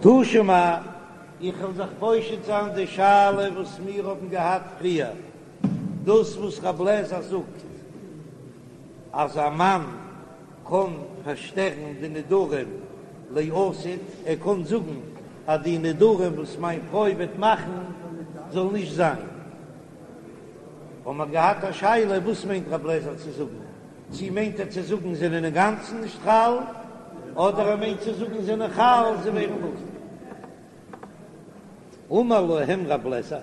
תא שמע, איך וועל זיך פושט זיין די שאלה וואס מיר האבן געהאט פריער, דאס וואס רב לעזער זאגט אז א מאן קען פארשטערן די נדרים לעתיד, ער קען זאגן אז די נדרים וואס מיין פרוי וועט מאכן זאל נישט זיין. האבן מיר געהאט א שאלה וואס מיינט רב לעזער צו זאגן, צי מיינט ער צו זאגן זענען אינגאנצן נישט חל, אדער ער מיינט צו זאגן זענען חל זיי ווערן בטל. אמר להם רב לעזער,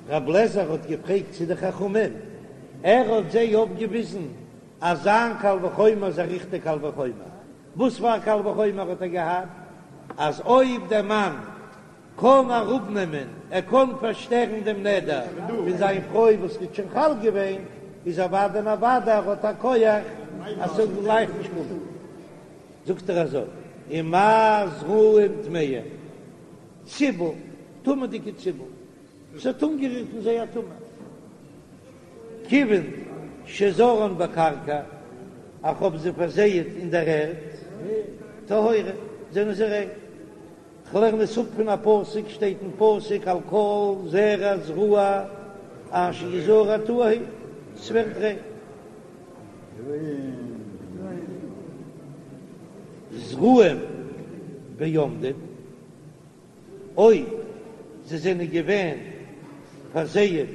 רב לעזער האט געפרעגט צו די חכמים, ער האט זיי אויפגעוויזן אז זיין קל וחומר איז א ריכטיג קל וחומר, וואס פאר א קל וחומר האט ער געהאט? אז אויב דער מאן קען אראפנעמען, ער קען פארשטערן דעם נדר פון זיין פרוי וואס איז שוין חל געווען, איז אוודאי און אוודאי ער האט א כח אז ס'זאל גלייך נישט קומען. זאגט ער אזוי, ומה זרעים טמאים, ציבל, טמא'דיגע ציבל, ס'האט אנגערירט אין זיי א טומאה, כיוון שזרען בקרקע, איך האב זיי פארזייעט אין דער ערד, טהורין, זענען זיי ריין. כ'לערן עס אפ פון א פסוק, שטייט אין פסוק על כל זרע זרוע אשר יזרע טהור הוא, ס'ווערט ריין. זרעים בעומדים, אויב זיי זענען געווען פארזייעט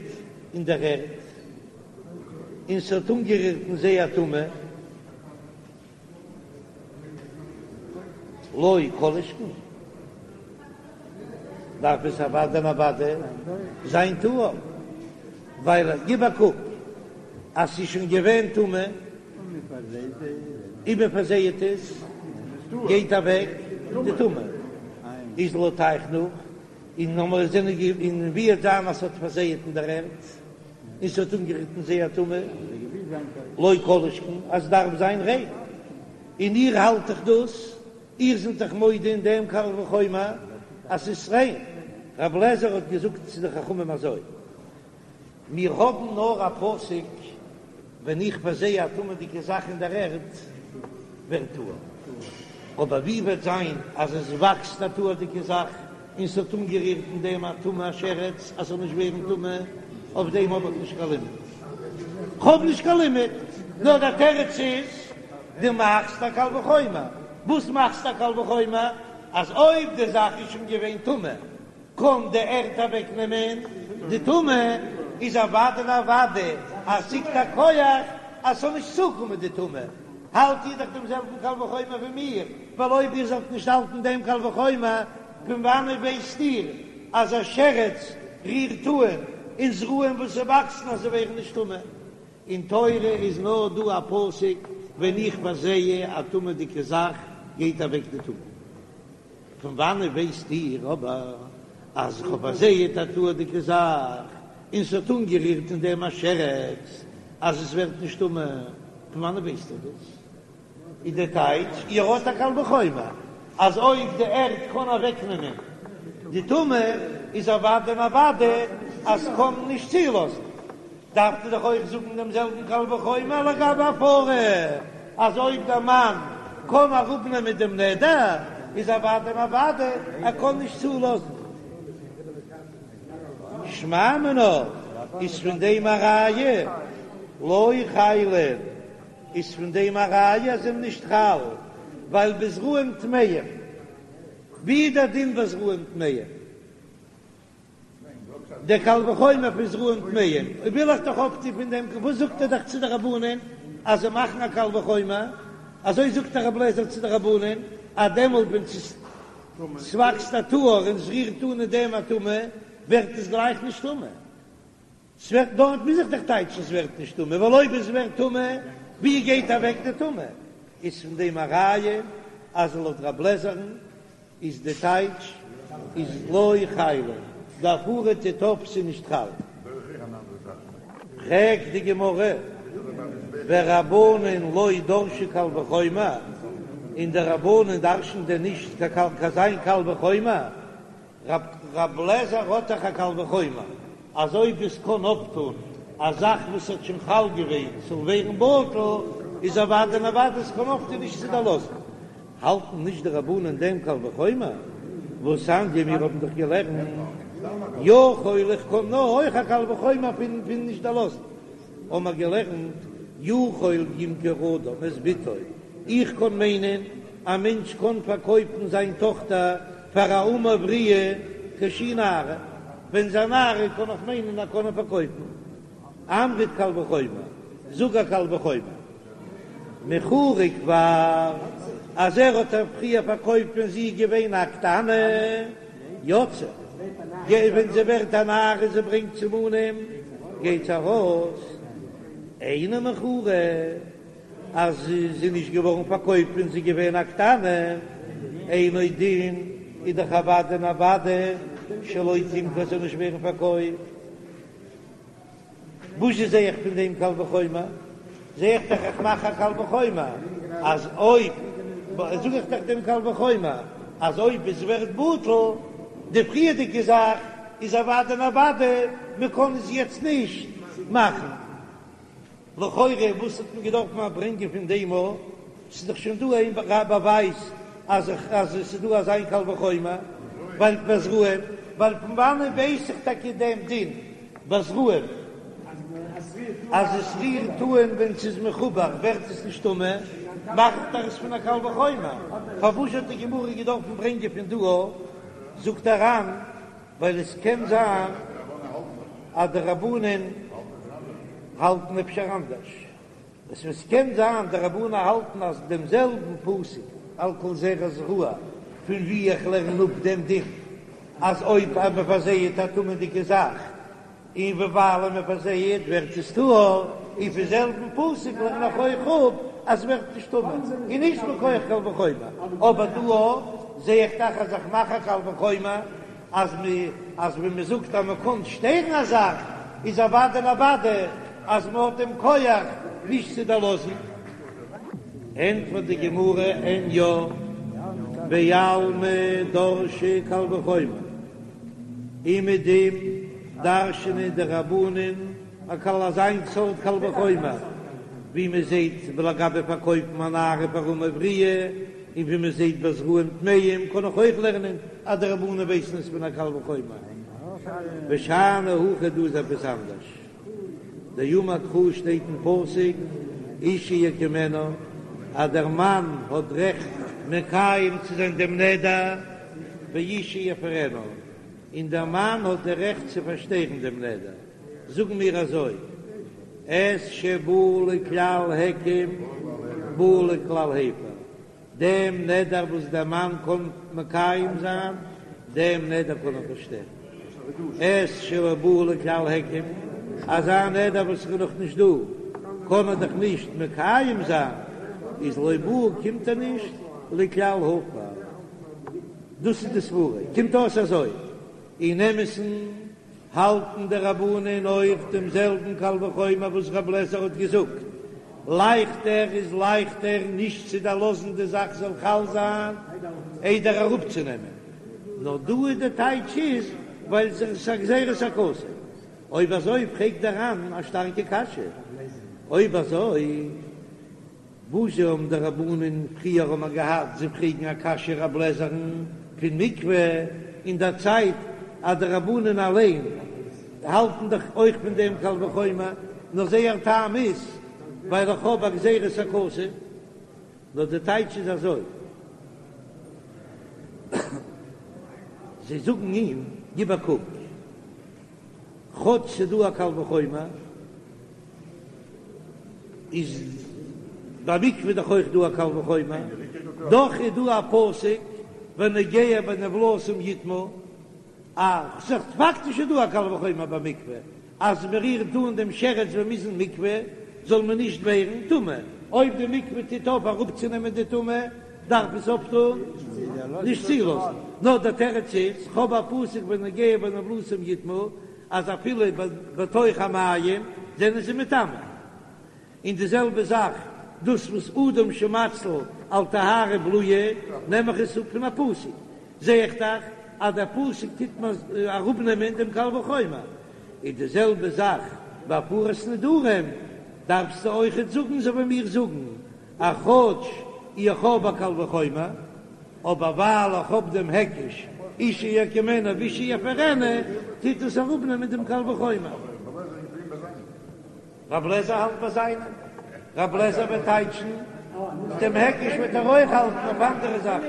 אין דער ערד, און ס'האט אנגערירט אין זיי א טומאה, לא כל שכן, דארף עס אוודאי און אוודאי זיין טהור, ווייל גיב א קוק אז ס'איז שוין געווען טמא, און מען פארזייעט עס, גייט אוועק די טומאה, איז לויט אייך נאך, און נאר זענען און ווי וועט זיין אז ס'האט פארזייעט אין דער ערד. און ס'האט אנגערירט אין זיי א טומאה, לא כל שכן אז דארף זיין ריין, און איר האלט דאך דאס, איר זענט דאך מודה אין דעם קל וחומר אז ס'איז ריין. רב לעזער האט געזאגט צו די חכמים אזוי, מיר האבן נאר א פסוק, ווען איך פארזיי א טמא'דיגע זאך אין דער ערד, ווערט טהור. אבער ווי וועט זיין אז עס וואקסט א טהור'דיגע זאך און ס'האט אנגערירט אין דעם א טומאה א שרץ אז ס'זאל נישט ווערן טמא, אויף דעם האב איך נישט קיין לימוד. כ'האב נישט קיין לימוד, נאר דער תירוץ איז, דו מאכסט א קל וחומר. וואס מאכסטו א קל וחומר? אז אויב די זאך איז שוין געווען טמא, קען די ערד אוועק נעמען די טומאה, איז אוודאי און אוודאי אז ס'ליגט א כח אז ס'זאל נישט צוקומען די טומאה, האלט איר דאך דעם זעלבן קל וחומר ווי מיר, ווייל אויב איר זאלט נישט האלטן דעם קל וחומר, פון וואנעט ווייסט איר אז א שרץ רירט אן אין זרעים וואס וואקסן אז זיי ווערן נישט טמא? אין תורה איז נאר דא א פסוק ווען איך פארזעה א טמא'דיגע זאך גייט אוועק די טומאה. פון וואנעט ווייסט איר אבער אז איך האב פארזייעט א טהור'דיגע זאך און ס'האט אנגערירט אין דעם א שרץ אז עס ווערט נישט טמא? פון וואנעט ווייסט איר דאס? איז דער טייטש, איר האט א קל וחומר אז אויב די ערד קען אוועקנעמען די טומאה איז אוודאי און אוודאי אז ס'קען נישט צולאזן. דארף מען דאך אויך זאגן דעם זעלבן קל וחומר לגבי הפרה, אז אויב דער מאן קען אראפנעמען דעם נדר, איז אוודאי און אוודאי ער קען נישט צולאזן. שמע מינה, איז פון דעם א ראיה לא חילין, איז פון דעם א ראיה אז זענען נישט חל, ווייל בזרעים טמאים, ווי איז דער דין בזרעים טמאים? דער קל וחומר פון זרעים טמאים, אויב וויל איך דאך אויפטון פון דעם, וואס זאגט ער דאך צו די רבנן אז זיי מאכן א קל וחומר, אזוי זאגט דאך רבי אליעזר צו די רבנן, אז דעמאלט ווען ס'וואקסט א טהור און ס'רירט אן אין דעם א טומאה, ווערט עס גלייך נישט טמא. ס'ווערט דארט מוז איך דאך טייטשן ס'ווערט נישט טמא, ווייל אויב עס ווערט טמא, ווי גייט אוועק די טומאה? איז פון דעם א ראיה אז לויט רב לעזער'ן איז די טייטש איז לא חילין, די הפרה טוט אויף ס'איז נישט חל. פרעגט די גמרא, ורבנן לא דרשי קל וחומר, און די רבנן דרש'ן דען נישט קיין אזא קל וחומר? רב לעזער האט דאך א קל וחומר אז אויב עס קען אויפטון א זאך וואס האט שוין חל געווען ס'זאל ווערן בטל, איז אוודאי און אוודאי עס קען אויפטון נישט צו דערלאזן. האלטן נישט די רבנן דעם קל וחומר? והתניא מיר האבן דאך געלערנט יכול איך קען נאר אויך א קל וחומר פון פון נישט דערלאזן האבן מיר געלערנט יכול ימכור אדם את בתו איך קען מיינען א מענטש קען פארקויפן זיין טאכטער פאר א אמה עבריה כשהיא נערה ווען זי א נערה קען איך מיינען ער קען איר פארקויפן אמרת קל וחומר זאג א קל וחומר. מכורה כבר, אז ער האט איר פריער פארקויפט ווען זי איז געווען א קטנה, יוצאה, ווען זי ווערט א נערה און זי ברענגט סימנים, גייט זי ארויס, אינה מכורה, אז זי איז נישט געווארן פארקויפט ווען זי איז געווען א קטנה, אינו דין, איז דאך אוודאי און אוודאי שלא תמכר זאל נישט ווערן פארקויפט. וואס זע איך פון דעם קל וחומר? זע איך דאך איך מאך א קל וחומר אז אויב זאג איך דאך דעם קל וחומר אז אויב עס ווערט בטל די פריערדיגע זאך איז אוודאי און אוודאי מען קען עס יעצט נישט מאכן. לכאורה וואס האט מען געדארפט מיר ברענגען פון דעם א? ס'איז דאך שוין דא איין באווייז אז אז עס איז דא אזא איין קל וחומר ווייל בזרעים ווייל פון וואנען ווייס איך טאקע דעם דין בזרעים אז עס רירט אן ווען ס'איז מחובר ווערט עס נישט טמא, מאכט ער עס פון א קל וחומר, פארוואס האט די גמרא געדארפן ברענגען פון דא א? זאגט דער ר"ן ווייל עס קען זיין אז די רבנן האלטן אפשר אנדערש. עס וואס קען זיין די רבנן האלטן אז דעם זעלבן פסוק על כל זרע זרוע פון ווי איך לערן אפ דעם דין אז אויב אז מען פארזייעט א טמא'דיגע זאך און וויבאלד מען פארזייעט ווערט עס טהור, און פון זעלבן פסוק לערן איך אויך אפ אז ס'ווערט נישט טמא און נישט מכח קל וחומר, אבער דא זע איך דאך אז איך מאך א קל וחומר אז מ אז ווען מען זאגט אז מען קען שטערן א זאך איז אוודאי און אוודאי אז מען האט דעם כח נישט צו דערלאזן. ענטפערט די גמרא אין יא, בעלמא דרשי קל וחומר, אומעדום דרש'נען די רבנן א קל אזא איין סארט קל וחומר ווי מען זעט לגבי פארקויפן א נערה פאר אמה עבריה, און ווי מען זעט ביי זרעים טמאים קען איך אויך לערנען אז די רבנן ווייסן עס פון א קל וחומר. ושאני הכא דא איז עפעס אנדערש. דאמר קרא שטייט אין פסוק אישה יקימנו אז דער מאן האט רעכט מקיים צו זיין דעם נדר ואישה יפרנה און דער מאן האט די רעכט צו פארשטערן דעם נדר. זאגן מיר אזוי, את שבא לכלל היקם בא לכלל הפר, דעם נדר וואס דער מאן קען מקיים זיין, דעם נדר קען ער פארשטערן, את שלא בא לכלל היקם, אזא נדר וואס איז נאך נישט דא, קען ער דאך נישט מקיים זיין, איז לא בא קומט ער נישט לכלל הפר. דאס איז די סברה, קומט אויס אזוי, אין אמת'ן האלטן די רבנן אויך דעם זעלבן קל וחומר וואס רב לעזער האט געזאגט, לייכטער איז לייכטער נישט צו דערלאזן די זאך זאל חל זיין איידער אראפצונעמען, נאר דא איז די טייטש איז ווייל ס'איז א גזירת הכתוב. אויב אזוי פרעגט דער ר"ן א שטארקע קשיא, אויב אזוי וואס האבן די רבנן פריער האבן געהאט זיי פרעגן א קשיא רב לעזער'ן פון מקווה אין דער צייט אז די רבנן אליין האלטן דאך אויך פון דעם קל וחומר, נאר זייער טעם איז ווייל איך האב א גזירת הכתוב, נאר די טייטש איז אזוי, זיי זאגן אים גיב א קוק. כאטש ס'דא א קל וחומר, איז ביי מקווה דאך אויך דא א קל וחומר, דאך איז דא א פסוק והנוגע בנבלתם יטמא, א ס'איז פאקטיש איז דא א קל וחומר ביי מקווה, אז מ'רירט אן דעם שרץ ווען מ'איז אין מקווה זאל מען נישט ווערן טמא, אויב די מקווה טוט אויף אראפצונעמען די טומאה דארף עס אויפטון נישט צולאזן, נאר דער תירוץ איז, כ'האב א פסוק והנוגע בנבלתם יטמא, אז אפילו בתוך המים זענען זיי מטמא. און די זעלבע זאך דאס וואס אדם שמציל על טהרה בלועה נעם איך עס אפ פון א פסוק, זע איך דאך אז דער פסוק טוט מיר אראפנעמען דעם קל וחומר. און די זעלבע זאך ביי הפרת נדרים דארפסטו אויכעט זאגן אזוי ווי מיר זאגן אז כאטש איך האב א קל וחומר, אבער ווייל איך האב דעם היקש. אישה יקימנו ואישה יפרנו, טוט עס אראפנעמען דעם קל וחומר. רב לעזער האלט ביי זיינעם, רב לעזער וועט טייטשן דעם היקש וועט ער אויך האלטן אויף אנדערע זאכן,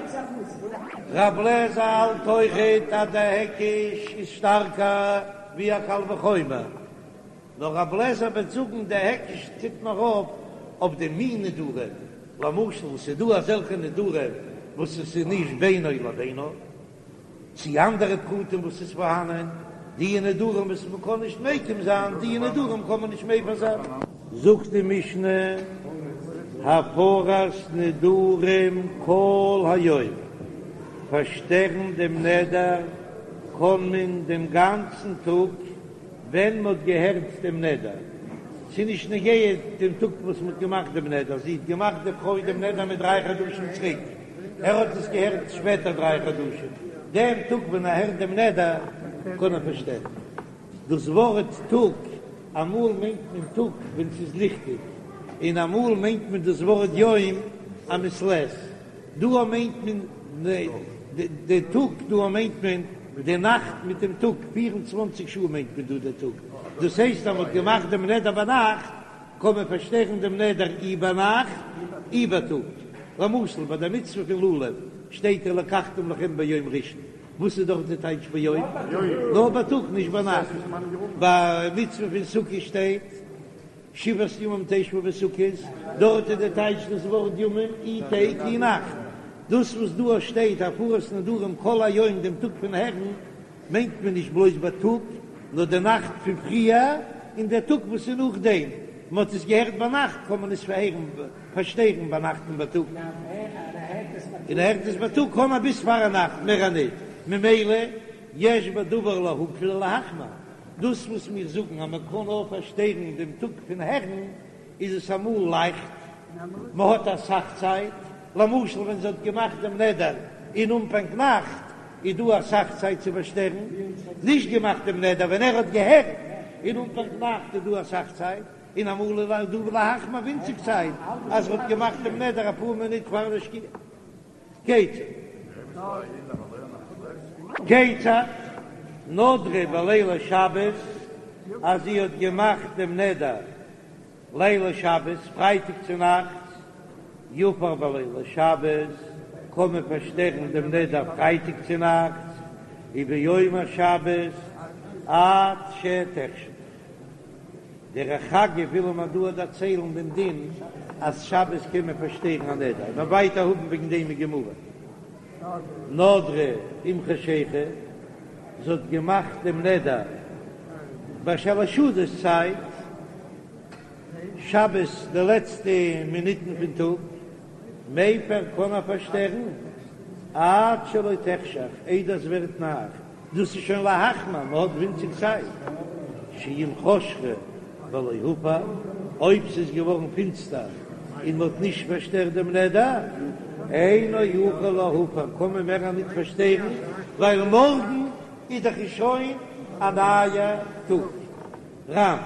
רב לעזער האלט אויכעט אז דער היקש איז שטארקער ווי א קל וחומר, נאר רב לעזער וועט זאגן דער היקש טוט נאר אויף אויף די מין נדרים, למשל ס'איז דא אזעלכע נדרים וואס עס איז נישט בינו לבינה, צי אנדערע פרטים וואס איז פארהאנען, די נדרים וואס מען קען נישט מקים זיין, די נדרים קען מען נישט מפר זיין. זאגט די משנה, הפרת נדרים כל היום, פארשטערן דעם נדר קען מען דעם גאנצן טאג ווען מען האט געהערט דעם נדר, ס'איז נישט נוגע דעם טאג וואס מען האט געמאכט דעם נדר, זי האט געמאכט די פרוי דעם נדר מיט דריי חדשים צוריק, ער האט עס געהערט שפעטער דריי חדשים, דעם טאג ווען ער הערט דעם נדר קען ער פארשטערן. דאס ווארט טאג, אמאל מיינט מען טאג ווען ס'איז ליכטיג, און אמאל מיינט מען דאס ווארט יום א מעת לעת. דא מיינט מען די טאג, דא מיינט מען די נאכט מיט דעם טאג, פיר און צוואנציג שעה מיינט מען דא די טאג. דאס הייסט אז מ'האט געמאכט דעם נדר ביינאכט, קען מען פארשטערן דעם נדר אי ביינאכט אי בייטאג. למשל ביי די מצוה פון לולב שטייט ולקחתם לכם ביום ראשון, וואס איז דארט די טייטש ביום? נאר בייטאג נישט ביינאכט. ביי מצוה פון סוכה שטייט שבעת ימים תשבו בסוכות, דארט איז די טייטש דאס ווארט ימים אי טעג אי נאכט. דאס וואס דא שטייט הפרת נדרים כל היום דעם טאג פון הערן, מיינט מען נישט בלויז בייטאג, נאר די נאכט פון פריער און דער טאג וואס איז נאכדעם, מען האט עס געהערט ביינאכט קען מען עס פארהערן, פארשטערן ביינאכט און בייטאג, און ער הערט עס בייטאג קען מען ביז פארנאכט מער ניט, ממילא יש בדבר להקל ולהחמיר, דאס וואס מיר זאגן אז מען קען נאר פארשטערן דעם טאג פון הערן, איז עס אמאל לייכט, מען האט אסאך צייט, למשל ווען זי האט געמאכט דעם נדר אין אנפאנג נאכט, איז דא אסאך צייט צו פארשטערן, נישט געמאכט דעם נדר ווען ער האט געהערט אין אנפאנג נאכט איז דא אסאך צייט, און אמאל איז דא להחמיר ווינציג צייט אז ער האט געמאכט דעם נדר אפאר מינוט פאר די שקיעה. כיצד? כיצד? נדרה בלילי שבת אז זי האט געמאכט דעם נדר לילי שבת, פרייטאג צו נאכטס, יפר בלילי שבת, קען מען פארשטערן דעם נדר פרייטאג צו נאכטס, וביום השבת עד שתחשך. דרך אגב וויל מען דא דערציילן דעם דין אז שבת קען מען פארשטערן א נדר, מ'וועט ווייטער האבן וועגן דעם אין גמרא. נדרה עם חשיכה, זי האט געמאכט דעם נדר ביי שלש סעודות צייט, שבת די לעצטע מינוטן פון טאג, מפר קען ער פארשטערן עד שלא תחשך, איידער עס ווערט נאכט. דאס איז שוין להחמיר, מען האט ווינציג צייט, שאם חשכה ולא הפר, אויב ס'איז געווארן פינסטער און מען האט נישט פארשטערט דעם נדר, אינו יכול להפר, קען מען מער ניט פארשטערן, ווייל מארגן איז דאך שוין א נייע טאג. ר"ן.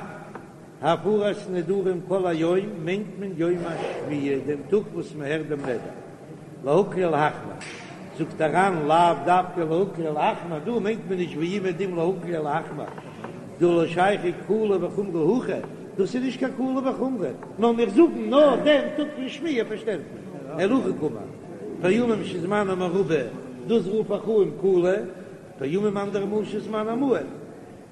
הפרת נדרים כל היום מיינט מען יום השמיעה, דעם טאג וואס מען הערט דעם נדר. להקל ולהחמיר, זאגט דער ר"ן לאו דווקא להקל ולהחמיר, דא מיינט מען נישט ווי אומעדום להקל ולהחמיר, דהא לא שייכי קולא וחומרא הכא, דאס איז נישט קיין קולא וחומרא, נאר מיר זאגן נאר דעם טאג פון שמיעה פארשטערט מען, אלא הכי קאמר, פעמים שזמנה מרובה, דאס רוף איך אן קולא, פעמים אנדערע מאל שזמנה מועט.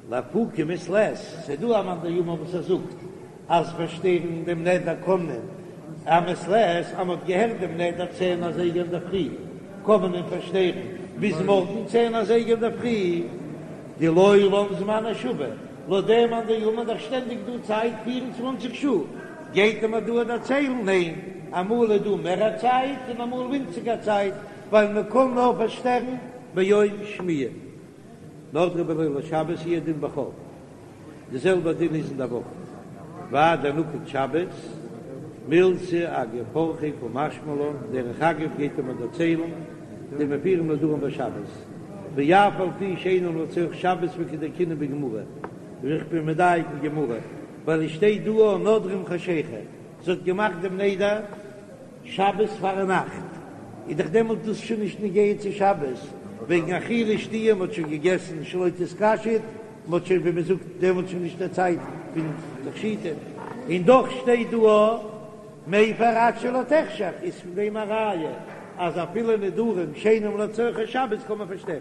לאפוקי מעת לעת, ס'איז דא א מאן דאמר וואס ער זאגט אז פארשטערן דעם נדר קען מען א מעת לעת, אז מ'האט געהערט דעם נדר צען אזייגער אינדערפרי קען מען אים פארשטערן ביז מארגן צען אזייגער אינדערפרי, דלעולם זמנו שווה, לויט דעם מאן דאמר איז דאך שטענדיג דא צייט 24 שעה, גייט ער מיר דא דערציילן ניין, אמאל איז דא מער א צייט און אמאל ווינציגער צייט, ווייל מ'קען נאר פארשטערן ביום שמיעה. נדרה בלילי שבת הוא הדין בחול, די זעלבע דין איז אין די וואך, והאי דנקט שבת, מילתא אגב אורחיה קא משמע לן, דרך אגב גייט ער מיר דערציילן דמפירים נדרים בשבת, ואף על פי שאינן לצורך שבת וכדדייקינן בגמרא, ווי איך בין מדייק אין גמרא, ווייל עס שטייט דא נדרה עם חשיכה, זי האט געמאכט דעם נדר. שבת פארנאכט איז דאך דעמאלט דאס שוין נישט נוגע צו שבת. וועגן אכילה שתיה, מ'האט שוין געגעסן שלא תתקשט, מ'האט שוין ווי מ'זאגט דעמאלט שוין נישט די צייט פון תכשיטים, און דאך שטייט דא א מפר עד שלא תחשך, איז פון דעם א ראיה אז אפילו נדרים שאינם לצרכי שבת קען מען פארשטערן.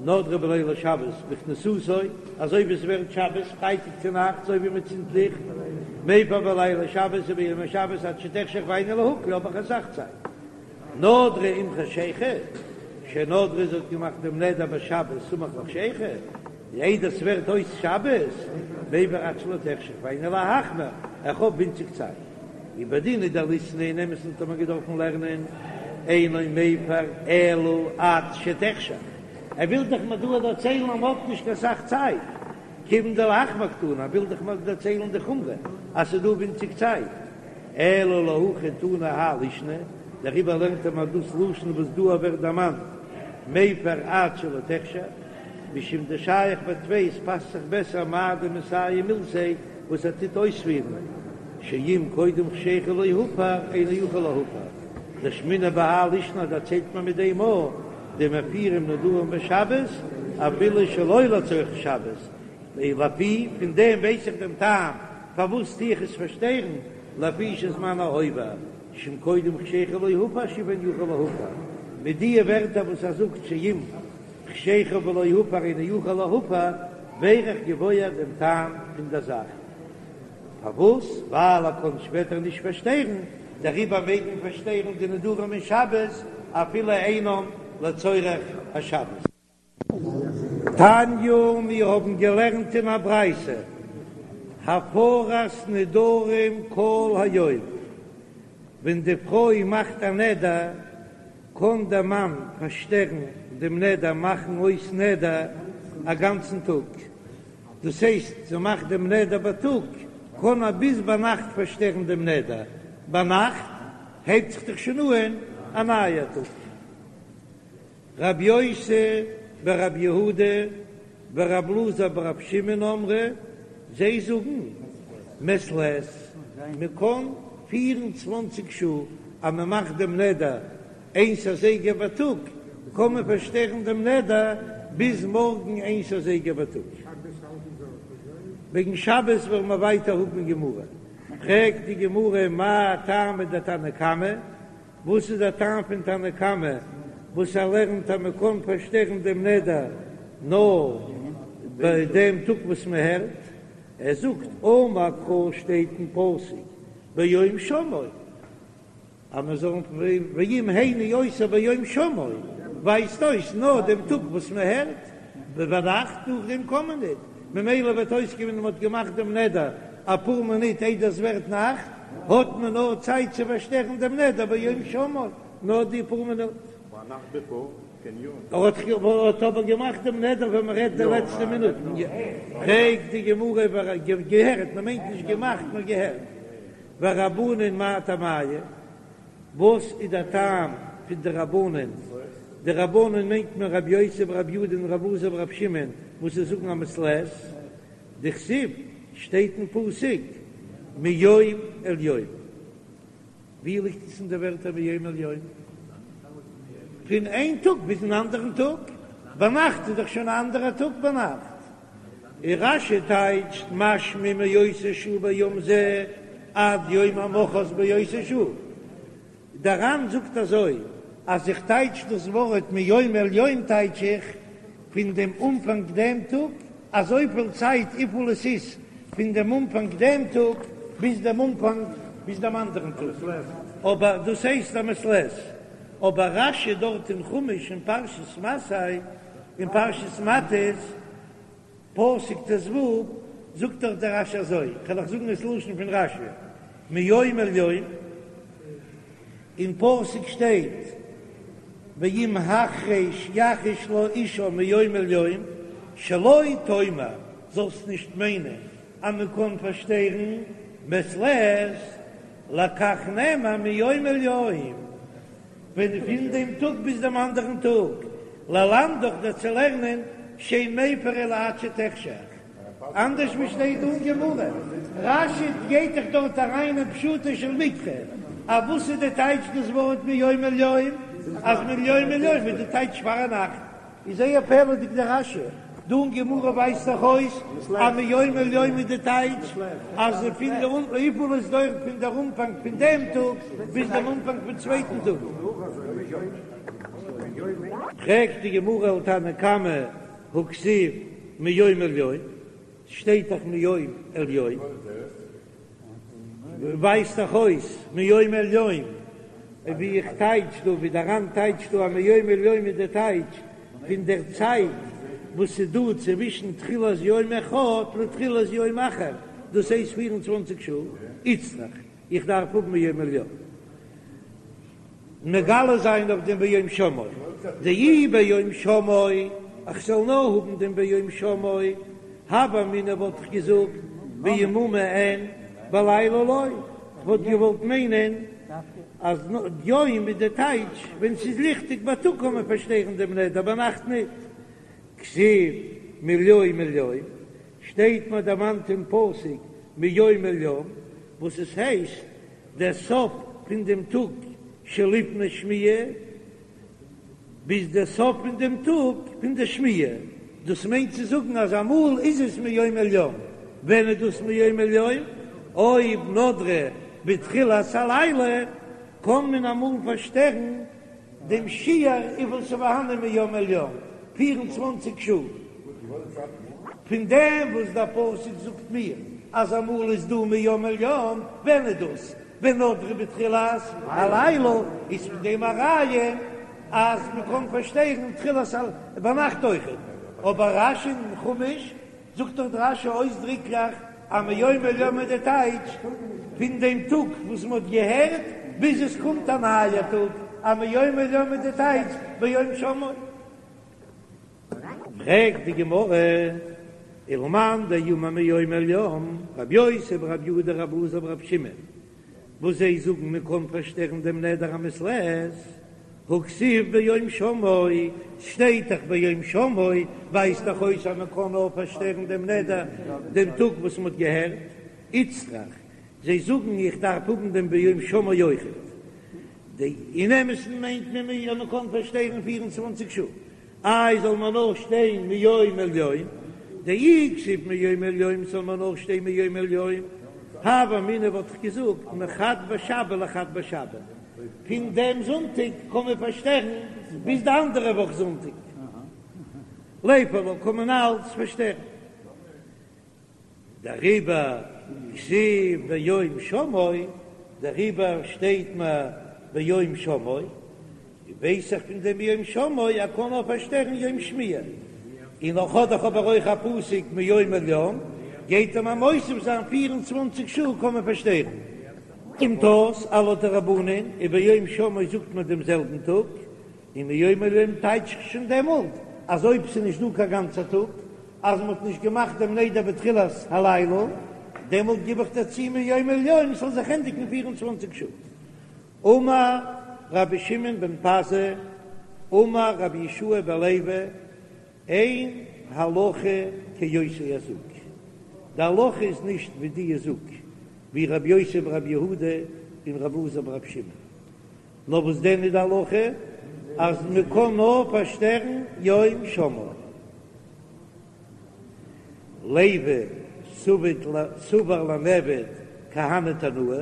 נדרה בלילי שבת בכניסתו, אזוי ווי עס ווערט שבת פרייטאג צו נאכטס אזוי ווי מען צינדט ליכט, מפר בלילי שבת וביום השבת עד שתחשך והיינו להקל האב איך אסאך צייט. נדרה עם חשיכה, שנדרה זי האט געמאכט דעם נדר בשבת סמוך לחשיכה, איידער ס'ווערט אויס שבת, מפר עד שלא תחשך והיינו להחמיר, איך האב ווינציג צייט. ובדין הוא דליתני אין אמת'ן האט מען געדארפן לערנען אינו מפר אלא עד שתחשך, ער וויל דאך מיר דא דערציילן אז מ'האט נישט קיין סאך צייט, כיוון דלהחמיר קתני, ער וויל דאך מיר דערציילן די חומרא אז ס'איז דא ווינציג צייט. אלא להכי תנא האי לישנא, דעריבער לערנט ער מיר דאס לשון וואס דא ווערט דערמאנט מפר עד שלא תחשך, משום דשייך בטפי עס פאסט זיך בעסער מאי דמסיים מילתיה וואס ער טוט אויספירן, שאם קודם חשיכה לא הפר אינו יכול להפר, דאשמעינן בהאי לישנא דערציילט מען מיט דעם א דמפירים נדרים בשבת אפילו שלא לצורך שבת, לפי פון דעם ווייס איך דעם טעם פארוואס טו איך עס פארשטערן, לפי שזמנו עובר, שאם קודם חשיכה לא הפר שוב אינו יכול להפר, מיט דיע ווערטער וואס ער זאגט שאם חשיכה ולא הפר אינו יכול להפר, ווער איך געוואויר דעם טעם פון דער זאך. פארוואס? ווייל ער קען שפעטער נישט פארשטערן, דעריבער מעג מען פארשטערן די נדרים אין שבת אפילו אינם לצורך השבת. תניא, מיר האבן געלערנט אין א ברייתא, הפרת נדרים כל היום, ווען די פרוי מאכט א נדר, קען דער מאן פארשטערן דעם נדר, מאכן אויס נדר א גאנצן טאג, דאס הייסט, זי מאכט דעם נדר בייטאג, קען ער ביז ביינאכט פארשטערן דעם נדר, ביינאכט הייבט זיך דאך שוין אן א נייער טאג. רב יוסי ברב יהודה ורב אלעזר ברב שמעון אמרי, זיי זאגן מעת לעת, מען קען פיר און צוואנציג שעה אז מען מאכט דעם נדר איינס אזייגער בייטאג, קען מען פארשטערן דעם נדר ביז מארגן איינס אזייגער בייטאג. וועגן שבת וועלן מיר ווייטער האבן אין גמרא. פרעגט די גמרא מאי טעמא דתנא קמא, וואס איז דער טעם פון תנא קמא וואס ער לערנט אז מען קען פארשטערן דעם נדר נאר ביי דעם טאג וואס מען הערט? ער זאגט אמר קרא שטייט אין פסוק ביום שמעו אז מען זאל ואם הניא אותה ביום שמעו ווייזט אויס נאר דעם טאג וואס מען הערט, ביינאכט נאכדעם קען מען ניט, ממילא וועט אויסקומען מען האט געמאכט דעם נדר אפאר מינוט איידער עס ווערט נאכט, האט מען נאר צייט צו פארשטערן דעם נדר ביום שמעו, נאר די פאר מינוט. ער האט אבער געמאכט דעם נדר ווען מען רעדט די לעצטע מינוטן. פרעגט די גמרא געהערט, מען מיינט נישט געמאכט נאר געהערט. ורבנן מאי טעמייהו, וואס איז דער טעם פון די רבנן? די רבנן מיינט מען רבי יוסי ברבי יהודה און רבי אלעזר ברבי שמעון וואס זיי זאגן א מעת לעת. דכתיב, שטייט אין פסוק מיום אל יום. ווי ליגט עס אין די ווערטער מיום אל יום? פון איין טאג ביזן אנדערן טאג. ביינאכט איז דאך שוין א אנדערע טאג ביינאכט. און רש"י טייטשט משמע מאותה שעה ביום זה עד יום המחרת באותה שעה. דער ר"ן זאגט אזוי, אז איך טייטש דאס ווארט מיום אל יום טייטש איך פון דעם אנפאנג דעם טאג, אזויפיל צייט וויפיל עס איז פון דעם אנפאנג דעם טאג ביז דעם אנפאנג ביז דעם אנדערן טאג, אבער דאס הייסט א מעת לעת. אבער רש"י דארט אין חומש אין פרשת מסעי אין פרשת מטות, פסוק ט"ו, זאגט דאך דער רש"י אזוי, כ'על אייך זאגן עס לשון פון רש"י, מיום אל יום, אין פסוק שטייט ואם החרש יחריש לה אשה מיום אל יום, שלא תאמר, זאלסט נישט מיינען אז מען קען פארשטערן מעת לעת, לכך נאמר מיום אל יום, ווען פון דעם טאג ביז דעם אנדערן טאג, ללמדך דיר צו לערנען שאין מפר אלא עד שתחשך, אנדערש ווי שטייט דא אין גמרא, רש"י גייט דאך דארט אריין אין פשוטו של מקרא, א וואס איז די טייטש דאס ווארט מיום אל יום? אז מיום אל יום איז די טייטש פארנאכט. איז זייער פלא'דיג דער רש"י דא אין גמרא ווייזט דאך אויס אז מיום אל יום איז די טייטש אז פון די וויפיל עס דויערט פון דער אנפאנג פון דעם טאג ביז דעם אנפאנג פון צווייטן טאג. פרעגט די גמרא ולתנא קמא הכתיב מיום אל יום, שטייט דאך מיום אל יום. ווייזט דאך אויס מיום אל יום, ווי איך טייטש דא, ווי דער ר"ן טייטשט דא אז מיום אל יום איז די טייטש פון דער צייט וואס איז דא צווישן תחילת יום אחד לתחילת יום אחר, דאס הייסט פיר און צוואנציג שעה, איצטריך איך דארף האבן מיום אל יום. מגלה זיין אויף דעם ביום שמעו, דאי ביום שמעו, איך זאל נאר האבן דעם ביום שמעו, הוה אמינא וואלט איך געזאגט ביממא אין בלילה לא, כ'וואלט געוואלט מיינען אז יום איז די טייטש ווען ס'איז ליכטיג בייטאג קען מען פארשטערן דעם נדר ביינאכט ניט, כתיב מיום אל יום, שטייט מיר דערמאנט אין פסוק מיום אל יום, וואס עס הייסט דער סוף פון דעם טאג שלפני שמיעה ביז דער סוף פון דעם טאג פון דער שמיעה, דאס מיינט צו זאגן אז אמאל איז עס מיום אל יום, ווען איז דאס מיום אל יום? אויב נדרה בתחילת הלילה קען מען אמאל פארשטערן דעם שיעור וויפיל ס'איז פארהאנען מיום אל יום, פיר און צוואנציג שעה. פון דעם וואס דער פסוק זאגט מיר אז אמאל איז דא מיום אל יום, ווען איז דאס? ווען נדרה בתחילת הלילה, איז פון דעם א ראיה אז מ'קען פארשטערן תחילת ביינאכט אויכעט. אבער רש"י אין חומש זאגט דאך רש"י אויסדריקליך אז מיום אל יום איז די טייטש פון דעם טאג וואס מען האט געהערט ביז עס קומט א נייער טאג, אז מיום אל יום איז די טייטש ביום שמעו. פרעגט די גמרא, ולמאן דאמר מיום אל יום, רבי יוסי ברבי יהודה רבי אלעזר ברבי שמעון, וואס זיי זאגן מען קען פארשטערן דעם נדר א מעת לעת, הכתיב ביום שמעו, ס'שטייט דאך ביום שמעו, ווייזט דאך אויס אז מען קען נאר פארשטערן דעם נדר דעם טאג וואס מען האט געהערט, איצטריך, זיי זאגן איך דארף האבן דעם ביום שמעו אויכעט, אין אמת'ן מיינט מען אז מען קען פארשטערן פיר און צוואנציג שעה, איי זאל מען נאר שטיין מיום אל יום, דאי כתיב מיום אל יום זאל מען נאר שטיין מיום אל יום, הוה אמינא וואלט איך געזאגט מחד בשבא לחד בשבא, פון דעם זונטאג קען מען פארשטערן ביז די אנדערע וואך זונטאג, ליפר לה קען מען אלץ פארשטערן. דעריבער כתיב ביום שמעו, דעריבער שטייט מיר ביום שמעו, ווייס איך פון דעם ביום שמעו אז קען נאר פארשטערן יום שמיעה, און נאך האט דאך אבער אויך א פסוק מיום אל יום, גייט ער מיר מוסיף זיין פיר און צוואנציג שעה קען מען פארשטערן. קומט אויס אז לויט די רבנן איז ביום שמעו זאגט מען דעם זעלבן טאג, און מיום אל יום טייטש איך שוין דעמאלט אז אויב ס'איז נישט דא קיין גאנצער טאג, אז מ'האט נישט געמאכט דעם נדר בתחילת הלילה, דעמאלט גיב איך דערצו מיום אל יום ס'זאל זיך ענדיגן פיר און צוואנציג שעה. אמר רבי שמעון בן פזי, אמר רבי יהושע בן לוי, אין הלכה כאותו הזוג, די הלכה איז נישט ווי די זוג, ווי רבי יוסי ברבי יהודה און רבי אלעזר ברבי שמעון. נאר וואס דען איז די הלכה אז מען קען נאר פארשטערן יום שמעו. לוי סבר למיעבד כהני תנאי,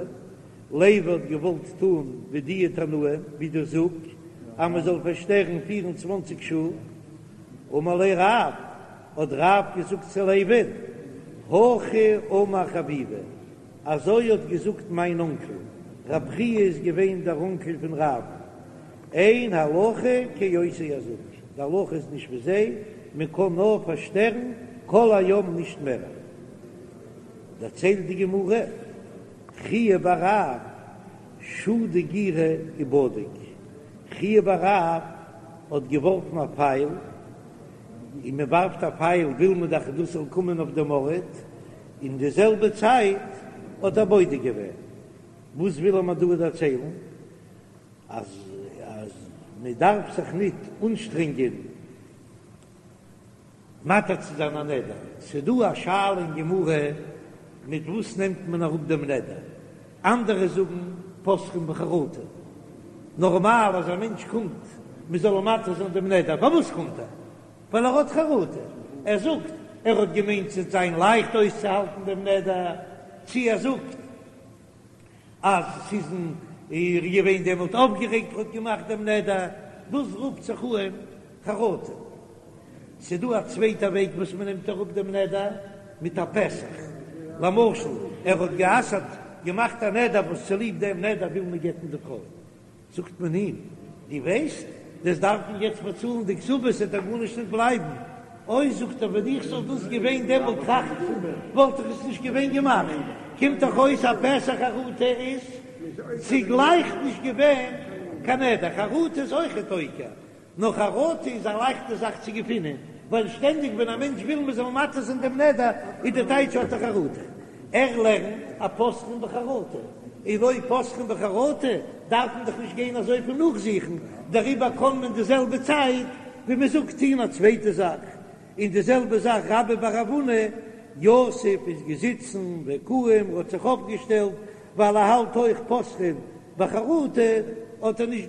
לוי האט געוואלט טון ווי די תנאים ווי די זוג אז מען זאל פארשטערן פיר און צוואנציג שעה, אמר ליה רב, האט רב געזאגט צו לוי'ן, הכי אמר חביבי, אזוי האט געזאגט מיין אנקל, רב חייא איז געווען דער אנקל פון רב, אין הלכה כאותו הזוג, די הלכה איז נישט ווי זיי, מען קען נאר פארשטערן כל היום נישט מער. דערציילט די גמרא, חייא בר רב שדי גירא ובדיק, חייא בר רב האט געווארפן א פייל, און מען ווארפט א פייל וויל מען דאך דאס זאל קומען אויף דעם ארט, אין די זעלבע צייט האט ער בודק געווען. וואס וויל ער מיר דא דערציילן? אז אז מען דארף זיך ניט אנשטרענגען מתיר צו זיין א נדר. ס'איז דא א שאלה אין גמרא מיט וואס נעמט מען אראפ דעם נדר? אנדערע זאגן פותחין בחרטה. נארמאל אז א מענטש קומט מען זאל אים מתיר זיין דעם נדר, פארוואס קומט ער? ווייל ער האט חרטה, ער זאגט ער האט געמיינט ס'וועט זיין לייכט אויסצוהאלטן דעם נדר, צי ער זאגט אז ס'איז ער געווען דעמאלט אויפגערעגט ער האט געמאכט דעם נדר, דאס רופט זיך אן חרטה. ס'דא א צווייטע וועג וואס מ'נעמט אראפ דעם נדר, מיט א פתח. למשל ער האט גע'אסר'ט, געמאכט א נדר וואס צוליב דעם נדר וויל מען גט'ן די פרוי, זאגט מען אים, דו ווייסט, דו'סט דארפן יעצט באצאלן די כתובה, ס'וועט דיר גארנישט נישט בלייבן. אוי, זאגט ער, ווען איך זאל דאס געווען דעמאלט טראכטן, וואלט איך עס נישט געווען געמאכט. קומט דאך אויס אז פתח חרטה איז צוגלייך נישט געווען קיין נדר, חרטה איז אויכעט עוקר, נאר חרטה איז א לייכטע זאך צו געפינען, ווייל שטענדיג ווען א מענטש וויל מען זאל מתיר זיין דעם נדר, איז די טייטש האט ער חרטה. ער לערנט אז פותחין בחרטה, און אויב פותחין בחרטה דארף מען דאך נישט גיין אזויפיל נאכזוכן, דעריבער קען מען די זעלבע צייט ווי מען זאגט טון א צווייטע זאך, און די זעלבע זאך רבה בר רב הונא, יתיב איז געזיצן וקאים האט זיך אויפגעשטעלט ווייל ער האלט אויך פותחין בחרטה האט ער נישט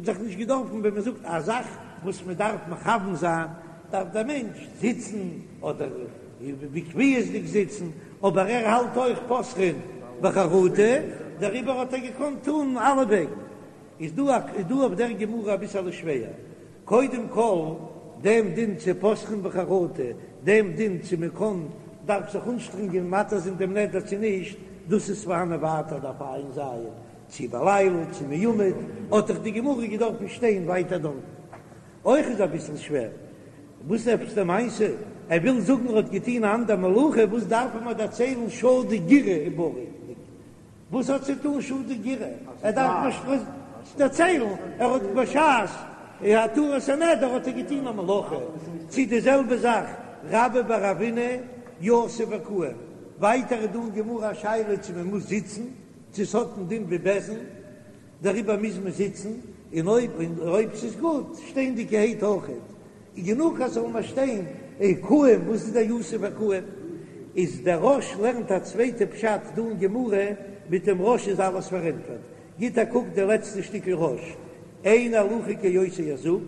זיך נישט געדארפן ווען מען זאגט א זאך וואס מען דארף מכוון זיין דארף דער מענטש זיצן אדער בקביעות'דיג זיצן אבער ער האלט אויך פותחין בחרטה דעריבער האט ער געקאנט טון אלע וועגן איז דא איז דא אויף דער גמרא אביסעלע שווער קודם כל, דעם דין צו פותחין בחרטה, דעם דין צו מען קען, דארף זיך אנשטרענגען מתיר זיין דעם נדר צו נישט, דאס איז פארהאנען ווייטער דף ע"ז, צו בלילה צו מעומד, האט דאך די גמרא געדארפן שטיין ווייטער דארטן. אויך איז אביסל שווער, וואס עפעס די מעשה? ער וויל זאגן ער האט געטון א אנדער מלאכה, וואס דארף ער מיר דערציילן שדי גירא ובריק? וואס האט צו טון שדי גירא? ער דארף נישט דערציילן, ער האט בשעת התרת הנדר האט ער געטון א מלאכה, צו די זעלבע זאך רבה בר רב הונא יתיב וקאים, ווייטער איז דא אין גמרא א שאלה צו מען מוז זיצן, צו ס'האט א דין ווי בית דין, דעריבער מוז מען זיצן, און אויב אויב ס'איז גוט שטענדיגערהייט אויכעט. איז גענוג אז ס'זאל נאר שטיין וקאים, וואס איז דער יתיב וקאים? איז דער רא"ש לערנט א צווייטע פשט דא אין גמרא, מיט דעם רא"ש איז אלעס פארענטפערט, גיט א קוק די לעצטע שטיקל רא"ש, אין הלכה כאותו הזוג,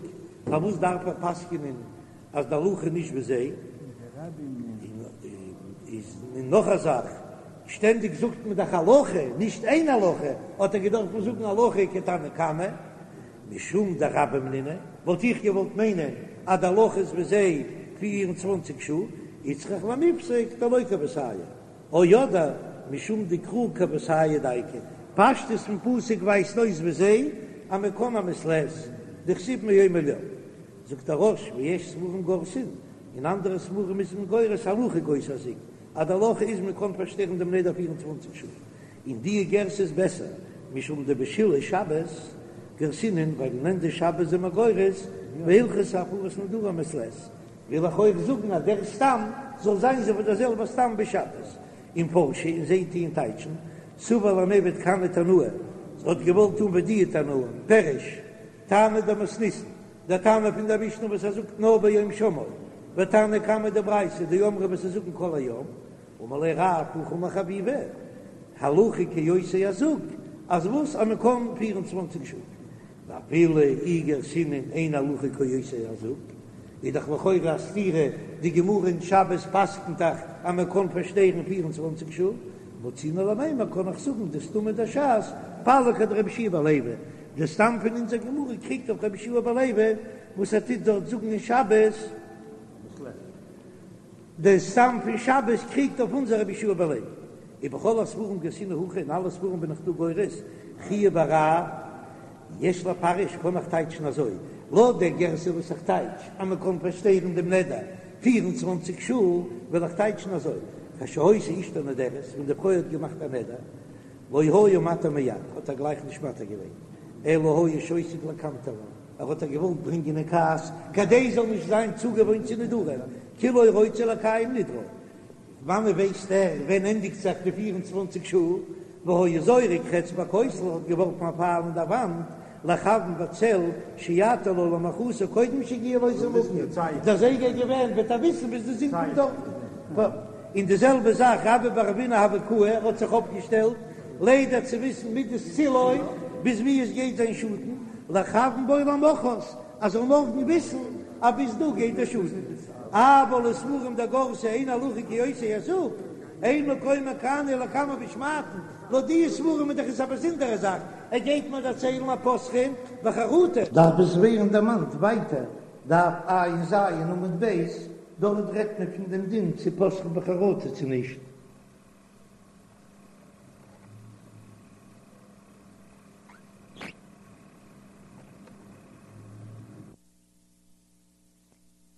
פארוואס דארף ער פסק'נען אז די הלכה איז נישט ווי זיי? און נאך א זאך, שטענדיג זאגט מען דאך הלכה, נישט אין הלכה, האט ער געדארפט זאגן הלכה כתנא קמא, משום דרבים נינהו, וואלט איך געוואלט מיינען אז די הלכה איז ווי זיי 24 שעה, איצטריך למיפסק דלא כוותייהו, או אדער משום דקרא כוותייהו דייקא, פשטות פון פסוק ווייזט אויס ווי זיי אז מען קען א מעת לעת, דכתיב מיום אל יום. זאגט דער רא"ש ויש ספרים גורסין, אין אנדערע ספרים איז מען גורס הלכה כאותו הזוג, אז די הלכה איז מען קען פארשטערן דעם נדר 24 שעה. און די גירסא איז בעסער, משום דבשלהי שבת גרסינן, ווייל אין ענדע שבת זענען מיר גורס והלכתא הפרת נדרים מעת לעת, וויל איך אויך זאגן אז דער סתם זאל זיין אזוי ווי דער זעלבער סתם בשבת, ומפרשי און זיי טוען טייטשן, סבר למיעבד כהני תנאי, האט געוואלט טון ווי די תנאים, פירוש, טעמא דמתניתין, דער תנא פון דער משנה וואס ער זאגט נאר ביום שמעו, ותנא קמא דברייתא דאמרי וואס זיי זאגן כל היום, אמר ליה רב הכי אמר חביבי, הלכה כאותו הזוג, אז וואס אז מען קען 24 שעה, ואפילו אי גרסינן אין הלכה כאותו הזוג, איז דאך לכאורה א סתירה, די גמרא אין שבת פסק'נט דאך אז מען קען פארשטערן 24 שעה, מצינן למימר קען איך זאגן דסתמא דש"ס פליג אדרבי יהושע בן לוי, די סתם פון אונזער גמרא קריגט אויף רבי יהושע בן לוי וואס ער טוט דארט זאגן אין שבת. דער סתם פון שבת קריגט אויף אונזער רבי יהושע בן לוי, ובכל הספרים גרסינן הכי, אין אלע ספרים בין איך דא גורס חייא בר רב יש לפרש קען איך טייטשן אזוי, לויט דער גרסה וואס איך טייטש אז מען קען פארשטערן דעם נדר 24 שעה, וועל איך טייטשן אזוי, כשהיתה אשתו נודרת, ווען די פרוי האט געמאכט א נדר, לא היה מתיר מיד, האט ער גלייך נישט מתיר געווען, אלא היה שותק לקנטרה. ער האט איר געוואלט ברענגען אין כעס כדי זי זאל נישט זיין צוגעוואוינט צו נדרים, כאילו רוצה לקיים נדרה. וואנען ווייסט ער ווען ענדיגט זיך די 24 שעה? והיה זורק חץ בכותל, האט געווארפן א פייל אין דער וואנט, לכוון בצל שיתיר לה למחרת קודם שיגיע לאותו מקום, דער זייגער איז געווען וועט ער וויסן ביז די זון קומט דארטן. און די זעלבע זאך רבה בר רב הונא הוה קאי, ער האט זיך אויפגעשטעלט לידע צו וויסן מידת צילו ביז ווי עס גייט זיין שאטן. לכוון בו למחרת, אז זאל מארגן וויסן אז ביז דא גייט דער שאדן. אבל לספרים דגרסי אין הלכה כאותו היזק, אין מקומו כאן אלא לקמן בשמעתין, לויט די ספרים איז דאך עס א באזונדערע זאך, ער גייט מיר דערציילן אז פותחין בחרטה. דארף עס ווערן דערמאנט ווייטער, דף ע"ז עמוד ב', דארט רעדט מען פון דעם דין צו פותחין בחרטה צו נישט.